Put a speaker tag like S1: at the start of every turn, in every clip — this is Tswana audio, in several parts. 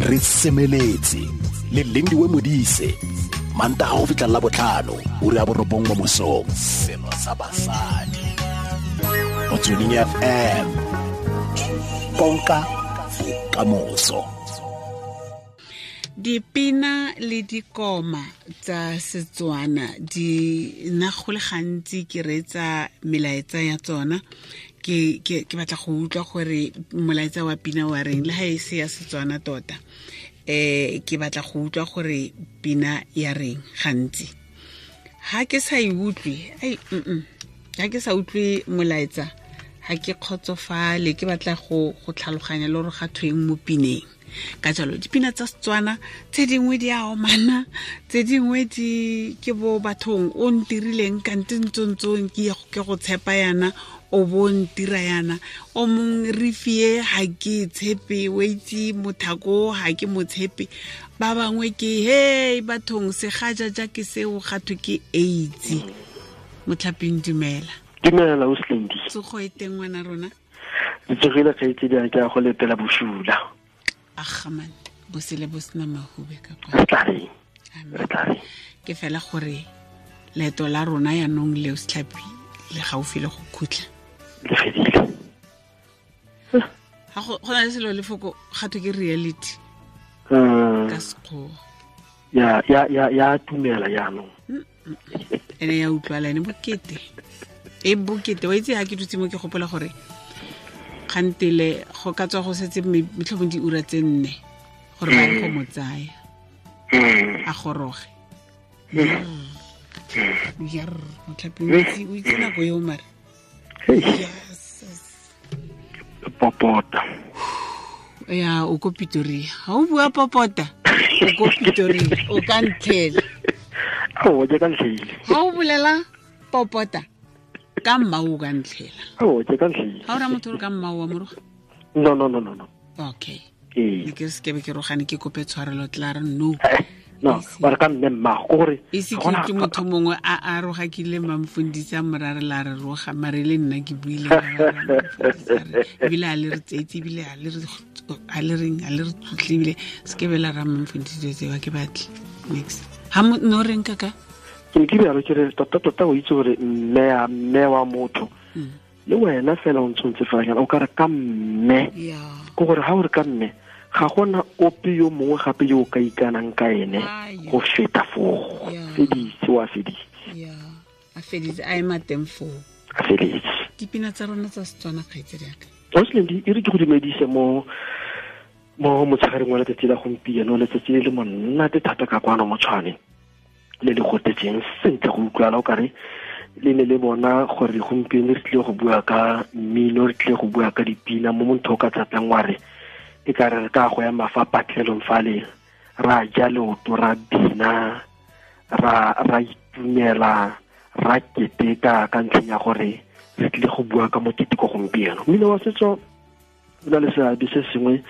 S1: Re semeletse le Lindiwe Modise, Mantaga go fitlha la botlhano, ura ya 9 mo mosong. Selo sa basadi. Motsweding FM. Konka bokamoso.
S2: Dipina le dikoma tsa Setswana di nna go le gantsi ke reetsa melaetsa ya tsona, ke batla go utlwa gore molaetsa wa pina wa reng, le ga e se ya Setswana tota. Ke batla go utlwa gore pina ya reng gantsi. Ha ke sa e utlwe, ai, ha ke sa utlwe molaetsa, ha ke kgotsofale, ke batla go tlhaloganya le gore ga thweng mo pineng. Ka jalo dipina tsa Setswana tse dingwe di a omana, tse dingwe di ke bo bathong o ntirileng kante ntsontsong ke ke go tshepa yana, o bo ntira yana, o mong re fie ha ke tshepe, o itse mothako ha ke mo tshepe. Ba bangwe ke hey bathong segajaja ke seo ga thwe ke AIDS. Motlhaping dumela.
S3: Dumela o Slendi.
S2: Tsogo e teng ngwana rona?
S3: Re tsogile kgaitsedi a ke a go letela bosula.
S2: Agaman bosele bo sena mahube ka kwa.
S3: Re tla reng?
S2: Amen.
S3: Re tla reng?
S2: Ke fela gore leeto la rona yaanong leo Setlhapi le gaufi le go khutla.
S3: Le fedile.
S2: Ga go na le selo lefoko ga thwe ke reality. Ka Sekgowa.
S3: Ya, ya, ya, ya tumela jaanong.
S2: Ene ya utlwala, ene bokete. E bokete, wa itse ha ke dutse mo ke gopola gore kgantele go ka tswa go setse metlhomong diura tse 4 gore ba ye go mo tsaya. A goroge. Yarr, Motlhapi, o itse nako eo mare.
S3: Hey.
S2: Yes.
S3: Popota.
S2: Ya, o ko Pretoria. Ha o bua popota, o ko Pretoria, o ka ntlhela.
S3: Ao, ke ka ntlhele.
S2: Ha o bolela popota, ka mma o ka ntlhela.
S3: Ao, ke ka ntlhele.
S2: Ha o ra motho o re ka mma o wa moroga?
S3: No, no, no, no, no.
S2: Okay.
S3: Ee.
S2: Ne ke se ke be ke rogane, ke kope tshwarelo, tla re no.
S3: No,
S2: Ise.
S3: ba re ka mme mmago, ke gore
S2: E se
S3: ga gona
S2: ke motho mongwe a a rogakile mamfundisi a morare la re roga, mare le nna ke buile ka ba re mamfundisi a re, ebile a le re tseetse, ebile a le re, a le reng, a le re tlotle, ebile se ke be la ra mamfundisi dilo tseo, ha ke batle. Next. Ha no reng kaka?
S3: Ke ne ke rialo ke re, tota, tota o itse gore mme ya, mme wa motho. Le wena fela o ntshwantse fela jaana, o ka re ka mme. Ke gore ha o re ka mme, ga gona ope yo mongwe gape yo o ka ikanang ka ene go feta foo. Feditse, wa feditse.
S2: A feditse, a ema teng foo.
S3: A feditse.
S2: Dipina tsa rona tsa Setswana, kgaitsedi ya ka.
S3: Ausi, e re ke go dumedise mo motshegareng wa letsatsi la gompieno, letsatsi le le monate thata ka kwano mo Tshwane, le le gotetseng sentle go utlwala o kare le ne le bona gore gompieno re tlile go bua ka mmino, re tlile go bua ka dipina, mo motho o ka tlatlang wa re e ka re re ka go ema fa patlelong fale, ra ja leoto, ra bina, ra itumela, ra keteka ka ntlheng ya gore re tlile go bua ka moketeko gompieno. Mmino wa setso o na le seabe se sengwe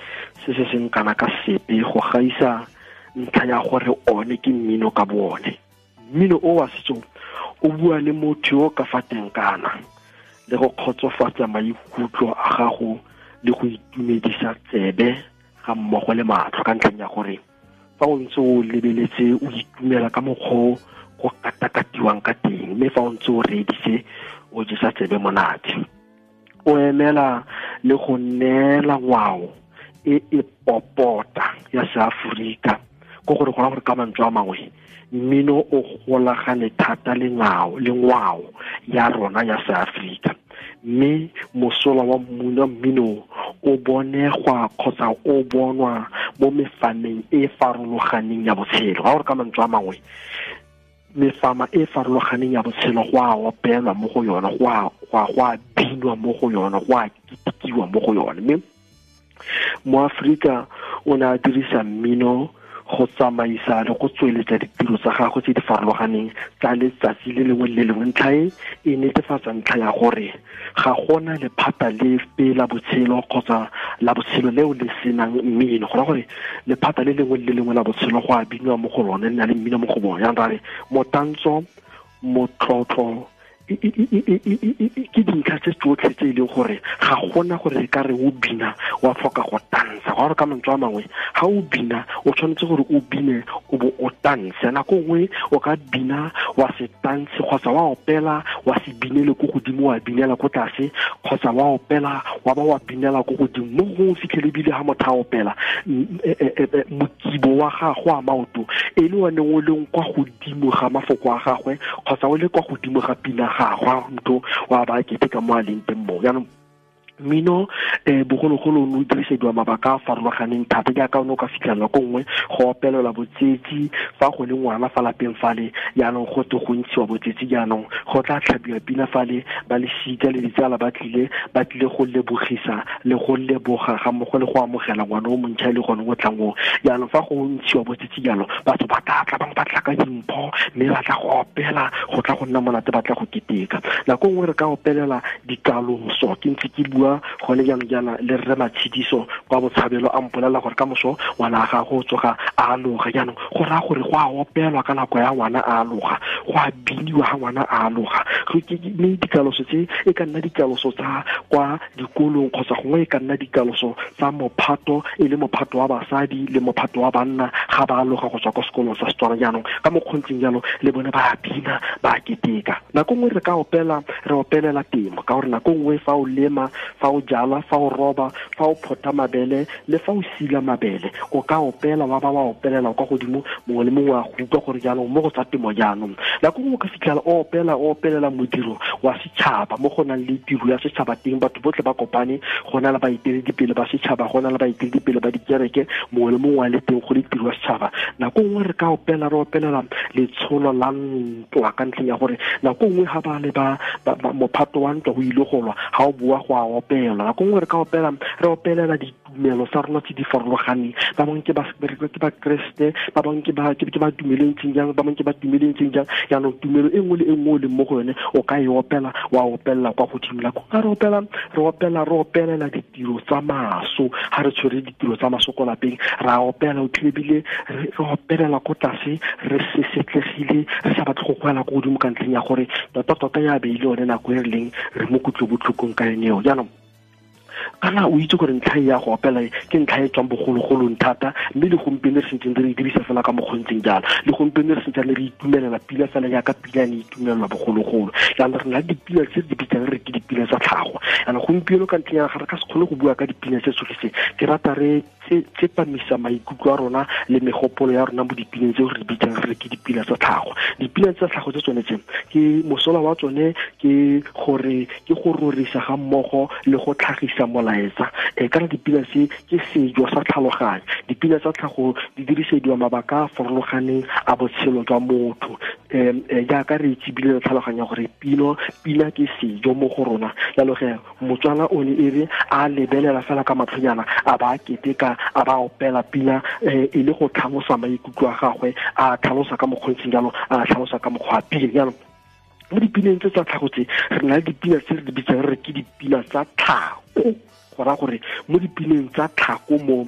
S3: se se seng kana ka sepe go gaisa ntlha ya gore one ke mmino ka bo one. Mmino o wa setso o bua le motho yo ka fa teng kana le go kgotsofatsa maikutlo a gago le go itumedisa tsebe ga mmogo le matlho, ka ntlheng ya gore fa o ntse o lebeletse o itumela ka mokgwa o go katakatiwang ka teng, mme fa o ntse o reeditse o jesa tsebe monate. O emela le go neela ngwao e e popota ya Seaforika, ke gore go raya gore ka mantswe a mangwe mmino o golagane thata le ngwao, le ngwao ya rona ya Seaforika, mme mosola wa mmino o bonegwa kgotsa o bonwa mo mefameng e farologaneng ya botshelo. Ga gore ka mantswe a mangwe mefama e farologaneng ya botshelo go a opelwa mo go yona, go a binwa mo go yona, go a ketekiwa mo go yone. Mme mo Aforika o ne a dirisa mmino go tsamaisa le go tsweletsa ditiro tsa gagwe tse di farologaneng tsa letsatsi le lengwe le lengwe. Ntlha e e netefatsa ntlha ya gore ga gona lephata lepe la botshelo kgotsa la botshelo leo le senang mmino. Go raya gore lephata le lengwe le lengwe la botshelo go a binwa mo go lone, le na le mmino mo go bone. Jaanong ra re motantso, motlotlo Ke dintlha tse tsotlhe tse e leng gore ga gona gore re ka re o bina wa tlhoka go tansa. Ga gore ka mantswe a mangwe, ga o bina o tshwanetse gore o bine o bo o tanse. Nako nngwe o ka bina wa se tanse, kgotsa wa opela wa se binele ko godimo wa binela ko tlase, kgotsa wa opela wa ba wa binela ko godimo. Mo gongwe o fitlhele ebile ga motho a opela mokibo wa gagwe a maoto e le one o leng kwa godimo ga mafoko a gagwe, kgotsa o le kwa godimo ga pina gagwe, motho wa ba kete ka mo a leng teng mo. Jaanong mmino bogologolo o ne o dirisediwa mabaka a farologaneng thata, jaaka o ne o ka fitlhela ko nngwe go opelelwa botsetsi fa go le ngwana fa lapeng fale, jaanong go te go ntshiwa botsetsi, jaanong go tla tlhabiwa pina fale, ba lesika le ditsala ba tlile go lebogisa le go leboga ga mmogo le go amogela ngwana o montšha e le gone o tlang o. Jaanong fa go ntshiwa botsetsi jalo, batho ba tla tla, bangwe ba tla ka dimpho, mme ba tla go opela, go tla go nna monate, ba tla go keteka. Nako nngwe re ka opelela dikaloso. Ke ntse ke bua gone jaanong jaana le rre Matshidiso kwa Botshabelo, a mpolelela gore ka moso ngwana a gagwe o tsoga a aloga. Jaanong go raya gore go a opelwa ka nako ya ngwana a aloga, go a biniwa ga ngwana a aloga. Mme dikaloso tse e ka nna dikaloso tsa kwa dikolong, kgotsa gongwe e ka nna dikaloso tsa mophato, e le mophato wa basadi le mophato wa banna ga ba aloga go tswa kwa sekolong sa Setswana. Jaanong ka mokgontseng jalo le bone ba a bina, ba a keteka. Nako nngwe re ka opela, re opelela temo, ka gore nako nngwe fa o lema, fa o jala, fa o roba, fa o phota mabele le fa o sila mabele, o ka opela wa ba wa opelela kwa godimo, mongwe le mongwe a go utlwa gore jaanong mo go tsa temo. Jaanong nako nngwe o ka fitlhela o opela, o opelela modiro wa setšhaba, mo go nang le tiro ya setšhaba teng, batho botlhe ba kopane, go na le baeteledipele ba setšhaba, go na le baeteledipele ba dikereke, mongwe le mongwe a le teng go le tiro ya setšhaba. Nako nngwe re ka opela, re opelela letsholo la ntwa, ka ntlheng ya gore nako nngwe ga ba le ba mophato wa ntwa o ile go lwa, ga o boa go a opela. Nako nngwe re ka opela, re opelela ditumelo tsa rona tse di farologaneng. Ba bangwe ke ba Kreste, ba bangwe ke ba tumelo e ntseng jang, ba bangwe ke ba tumelo e ntseng jang. Jaanong tumelo e nngwe le e nngwe o leng mo go yone o ka e opela, wa opelela kwa godimo. Nako ga re opela, re opela, re opelela ditiro tsa maso. Ga re tshwere ditiro tsa maso ko lapeng, ra opela, o tlile re opelela ko tlase, re sesetlegile, re sa batle go goela ko godimo ka ntlheng ya gore tota-tota ya be e le yone nako e re leng re mo kutlobotlhokong ka yone eo. Jaanong kana o itse gore ntlha ya go opela ke ntlha e tswang bogologolong thata, mme le gompieno re sentseng re e dirisa fela ka mokgontseng jalo. Le gompieno re sentseng re itumelela pila fela jaaka pila ne itumelelwa bogologolo. Jaanong re na le dipila tse di bitsang re ke dipila tsa tlhago. Jaanong gompieno ka ntlheng ya ga re ka se kgone go bua ka dipina tse tsotlhe tse, ke rata re tsepamisa maikutlo a rona le megopolo ya rona mo dipineng tseo re di bitsang re ke dipina tsa tlhago. Dipina tsa tlhago tse tsone tse ke mosola wa tsone ke gore ke go rorisa ga mmogo le go tlhagisa molaetsa. Kana dipina tse ke sejo sa tlhaloganyo. Dipina tsa tlhago di dirisediwa mabaka a farologaneng a botshelo jwa motho. Jaaka re itse ebile re tlhaloganya gore pina ke sejo mo go rona. Jalo ge Motswana o ne e re a lebelela fela ka matlhonyana, a ba keteka, a ba opela pina e le go tlhalosa maikutlo a gagwe, a tlhalosa ka mokgontseng jalo, a tlhalosa ka mokgwa wa pina. Jaanong mo dipineng tse tsa tlhago tse, re na le dipina tse re di bitsang re ke dipina tsa tlhako. Go raya gore mo dipineng tsa tlhako mo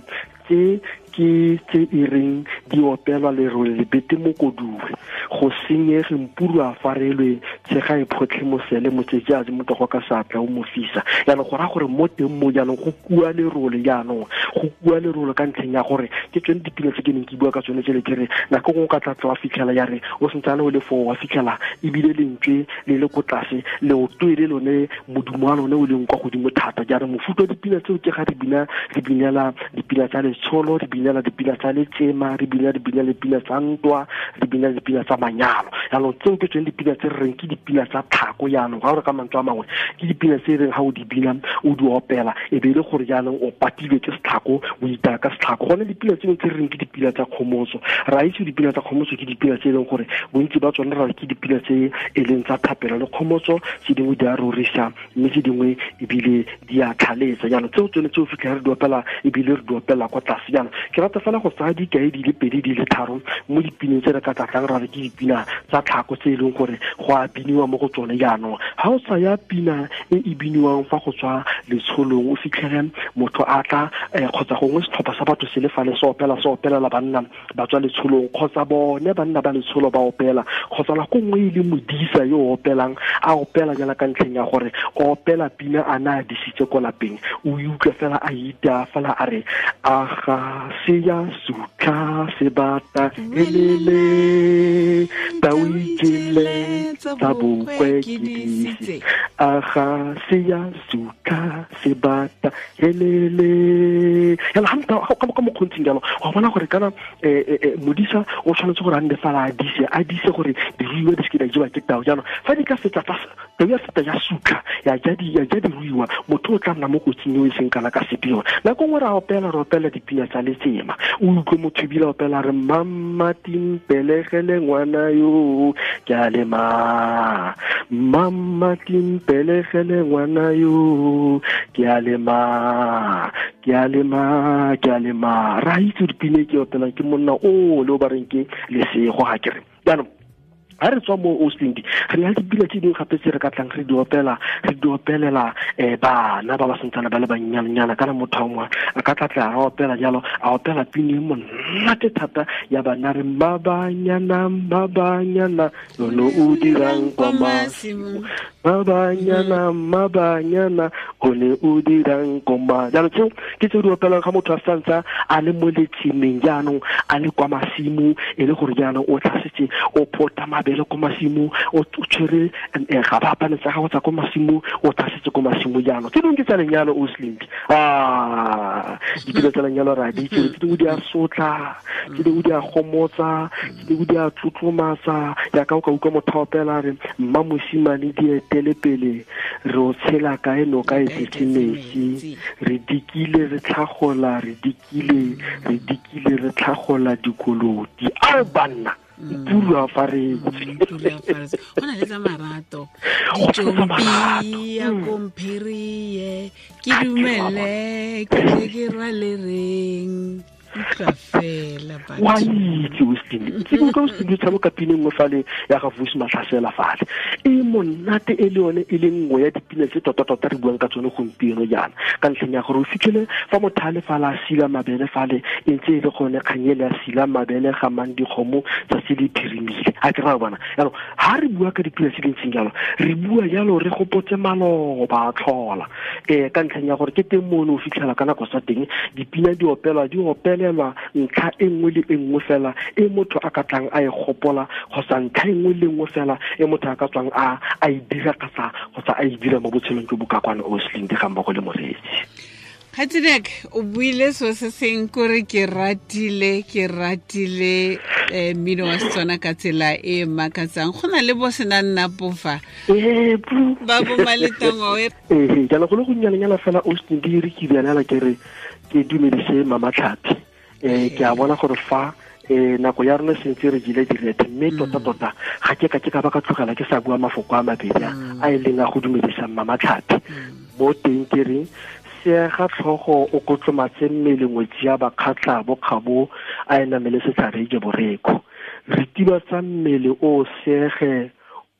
S3: tse ke tse e reng di opelwa lerole lebete mokoduwe, go senyege mpuru a farelwe, tshega e photlhe mosele motsetsi a motogo ka seatla o mo fisa. Jaanong go raya gore mo teng mo jaanong go kua lerole, jaanong go kua lerole ka ntlheng ya gore ke tsone dipina tse ke neng ke bua ka tsone tsele ke re nako nngwe o ka tlatla wa fitlhela ya re o sentsane o le foo wa fitlhela ebile lentswe le le ko tlase, leoto e le lone modumo wa lone o leng kwa godimo thata. Jaanong mofuta wa dipina tseo ke ga re bina, re binela dipina tsa letsholo, re binela dipina tsa letsema, re bina dipina tsa ntwa, re bina dipina tsa manyalo. Jaanong tseo ke tsone dipina tse re reng ke dipina tsa tlhako. Jaanong ga o re ka mantswe a mangwe ke dipina tse e reng ga o di bina o di opela e be e le gore jaanong o patilwe ke setlhako, o itaya ka setlhako. Gone dipina tseno tse re reng ke dipina tsa kgomotso, ra itse dipina tsa kgomotso ke dipina tse e leng gore bontsi ba tsone ra re ke dipina tse e leng tsa thapelo le kgomotso, tse dingwe di a rorisa mme tse dingwe ebile di a tlhaletsa. Jaanong tseo tsone tse o fitlhela re di opela ebile re di opela kwa tlase. Jaanong ke rata fela go tsaya dikai di le pedi pedi di le tharo mo dipineng tse re ka tlatlang ra re ke dipina tsa tlhako tse e leng gore go a biniwa mo go tsone. Jaanong ga o tsaya pina e e biniwang fa go tswa letsholong, o fitlhele motho a tla kgotsa gongwe setlhopha sa batho se le fale se opela, se opelela banna ba tswa letsholong, kgotsa bone banna ba letsholo ba opela, kgotsa nako nngwe e le modisa yo o opelang, a opela jala ka ntlheng ya gore o opela pina a na a disitse ko lapeng, o e utlwa fela a ita fela a re aga se ya sutlha sebata elele tau ijele tsa bokwe ke disitse, aga se ya sutlha sebata elele. Yalo ga ka mokgontsing jalo wa bona gore kana modisa o tshwanetse gore a nne fela a dise gore diruiwa di seke di a jewa ke tau. Jaanong fa di ka fetsa tau ya feta ya sutlha ya ja diruiwa, motho o tla nna mo kotsing eo e seng kana ka sepe. Yone nako nngwe re opela re opela dipina tsa letsema, o utlwe motho ebile a opela re mama timpelegele ngwana yo ke a lema, mama timpelegele ngwana yo ke a lema, ke a lema, ke a lema. Ra itse dipina e ke opelang ke monna o le o ba reng ke Lesego ga kere. Jaanong ga re tswa mo Oslindi re na le dipina tse dingwe gape tse re ka tlang re di opela, re di opelela bana ba ba santsane ba le bannyanenyana. Kana motho wa mongwe a ka tlatla a opela jalo, a opela pina e monate thata ya bana re mabanyana mabanyana lono o dirang kwa masimo, mabanyana mabanyana o ne o dirang kwa. Jaanong tseo ke tse di opelang ga motho a santsa a le mo letsemeng, jaanong a le kwa masimo, e le gore jaanong o tlhasetse o phota mabele ko masimo, o tshwere ga ba apane tsa gago tsa ko masimo, o tlhasetse ko masimo. Jaanong tse dingwe ke tsa lenyalo Oslindi, dipina tsa lenyalo ra di itse, tse dingwe di a sotla, tse dingwe di a gomotsa, tse dingwe di a tlotlomatsa. Jaaka o ka utlwa motho a opela re mma mosimane di etele pele re o tshela kae noka e tletse metsi, re dikile re tlhagola, re dikile re dikile re tlhagola dikoloti. Ao banna pula faretse,
S2: go na le tsa marato, ditšompi ya komphirie ke dumele ke tle ke rwale reng utlwa fela batho.
S3: Wa itse Oslindi, ke utlwa Oslindi o tshameka pina nngwe fale ya ga Vusi Matlhasela fale e monate, e le yone e le nngwe ya dipina tse tota-tota re buang ka tsone gompieno jaana, ka ntlheng ya gore o fitlhele fa motho a le fale a sila mabele fale, e ntse e le gone kgang ele a sila mabele ga mang dikgomo tsatsi le phirimile. A ke ra bona jaanong ga re bua ka dipina tse dintseng jalo, re bua jalo re gopotse maloba a tlhola ka ntlheng ya gore ke teng mo o ne o fitlhela ka nako sa teng dipina di opelwa, di opelelwa ntlha e nngwe le e nngwe fela e motho a ka tlang a e gopola, kgotsa ntlha e nngwe le nngwe fela e motho a ka tswang a e dira kgotsa a e dira mo botshelong jo bo ka kwana Oslindi ga mmogo le moreetsi.
S2: Kgaitsedek, o buile so se seng kore ke ratile mmino wa Setswana ka tsela e makatsang. Go na le bo sena nna pofa ba bo Maletangoe.
S3: Jaanong go le gonnyanenyana fela Oslindi re ke bianela ke re ke dumedise Mama Tlhapi. Ke a bona gore fa nako ya rona sentse re jile direthe, mme tota-tota ga ke ka ke ka ba ka tlogela ke sa bua mafoko a mabedi a e leng a go dumedisa Mama Tlhapi. Mo teng ke reng seega tlhogo o kotlomatse mmele ngwetsi ya bakgatlha bokgabo a e namele setlhare je boreko, re tibatsa mmele o seege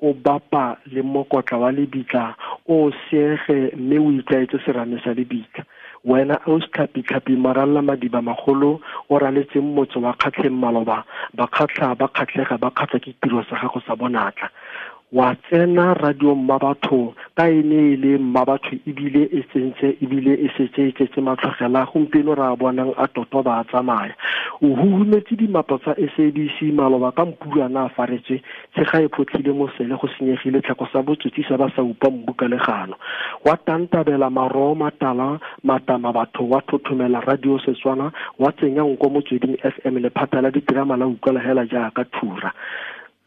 S3: o bapa le mokotla wa lebitla o seege mme o itlwaetse serame sa lebitla. Wena o setlhapi-tlhapi maralla madiba magolo o raletseng motse wa Kgatlheng maloba, bakgatlha ba kgatlhega ba kgatlha ke tiro sa gago sa bonatla. Wa tsena radio mmabatho ka e ne e le mmabatho ebile e tsentse ebile e setse e tletse matlhogela, gompieno re a bonang a toto ba a tsamaya. O huhumetse dimapo tsa SABC maloba ka mpulana a faretswe, tshega e photlhile mosele go senyegile tlhako sa botsotsi sa ba sa upa mbu ka legano. Wa tantabela maroo matala matama batho, wa thothomela radio Setswana, wa tsenya nko Motsweding FM lephata la diterama la utlwala hela jaaka thura.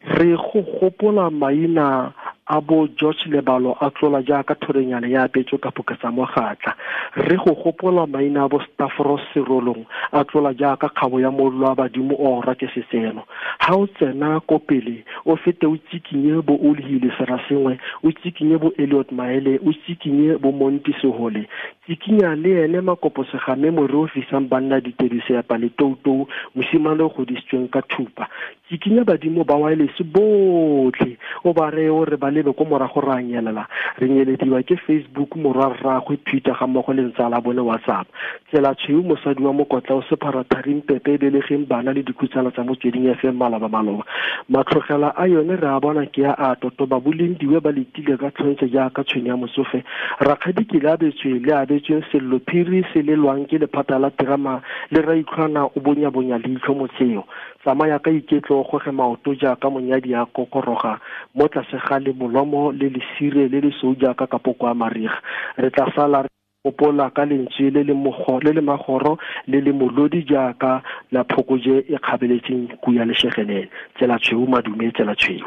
S3: Re go gopola maina A bo George Lebalo a tlola jaaka thorenyana ya apetswe ka phoka tsa mogatla. Re go gopola maina a bo Stavros Serolong a tlola jaaka kgabo ya mollo wa badimo o ora ke setseno. Ha o tsena ko pele o fete o tsikinye bo Olhile Serasengwe, o tsikinye bo Elliot Maele, o tsikinye bo Monti Sehole. Tsikinya le ene Makopo Segame more o fisang banna ditedu seapa le toutou, mosimane o godisitsweng ka thupa. Tsikinya badimo ba wireless botlhe o ba reye o re ba lebe ko morago re a nyelela. Re nyelediwa ke Facebook morwa rraagwe Twitter ga mmogo le ntsala bone WhatsApp. Tsela tshweu mosadi wa mokotla o sephara tharing pepe e belegeng bana le dikhutsana tsa Motsweding FM maloba maloba. Matlhogela a yone re a bona ke a a totoba bolendiwe ba letile ka tlhontse jaaka tshwene ya motsofe. Rakgadi ke le abetswe le abetsweng sello phiri se lelwang ke lephata la terama le raitlhwana o bonyabonya leitlho motseo. Tsamaya ka iketlo o goge maoto jaaka monyadi a kokoroga mo tlase ga le molomo le lesire le lesweu jaaka kapoko a mariga. Re tla sala re gopola ka lentswe le le le le magoro le le molodi jaaka la phokoje e kgabeletseng kuya leshegelele. Tsela tshweu madume, tsela tshweu.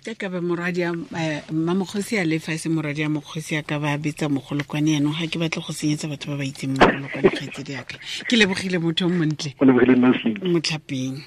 S2: Ke ka ba morwadi a mmamokgosi a lefa e se morwadi a mokgosi a ka ba betsa mogolokwane yanong ga ke batle go senyetsa batho ba ba itseng mogolokwane kgaitsedi yaka. Ke lebogile motho o montle.
S3: O lebogile nna
S2: Motlhapeng.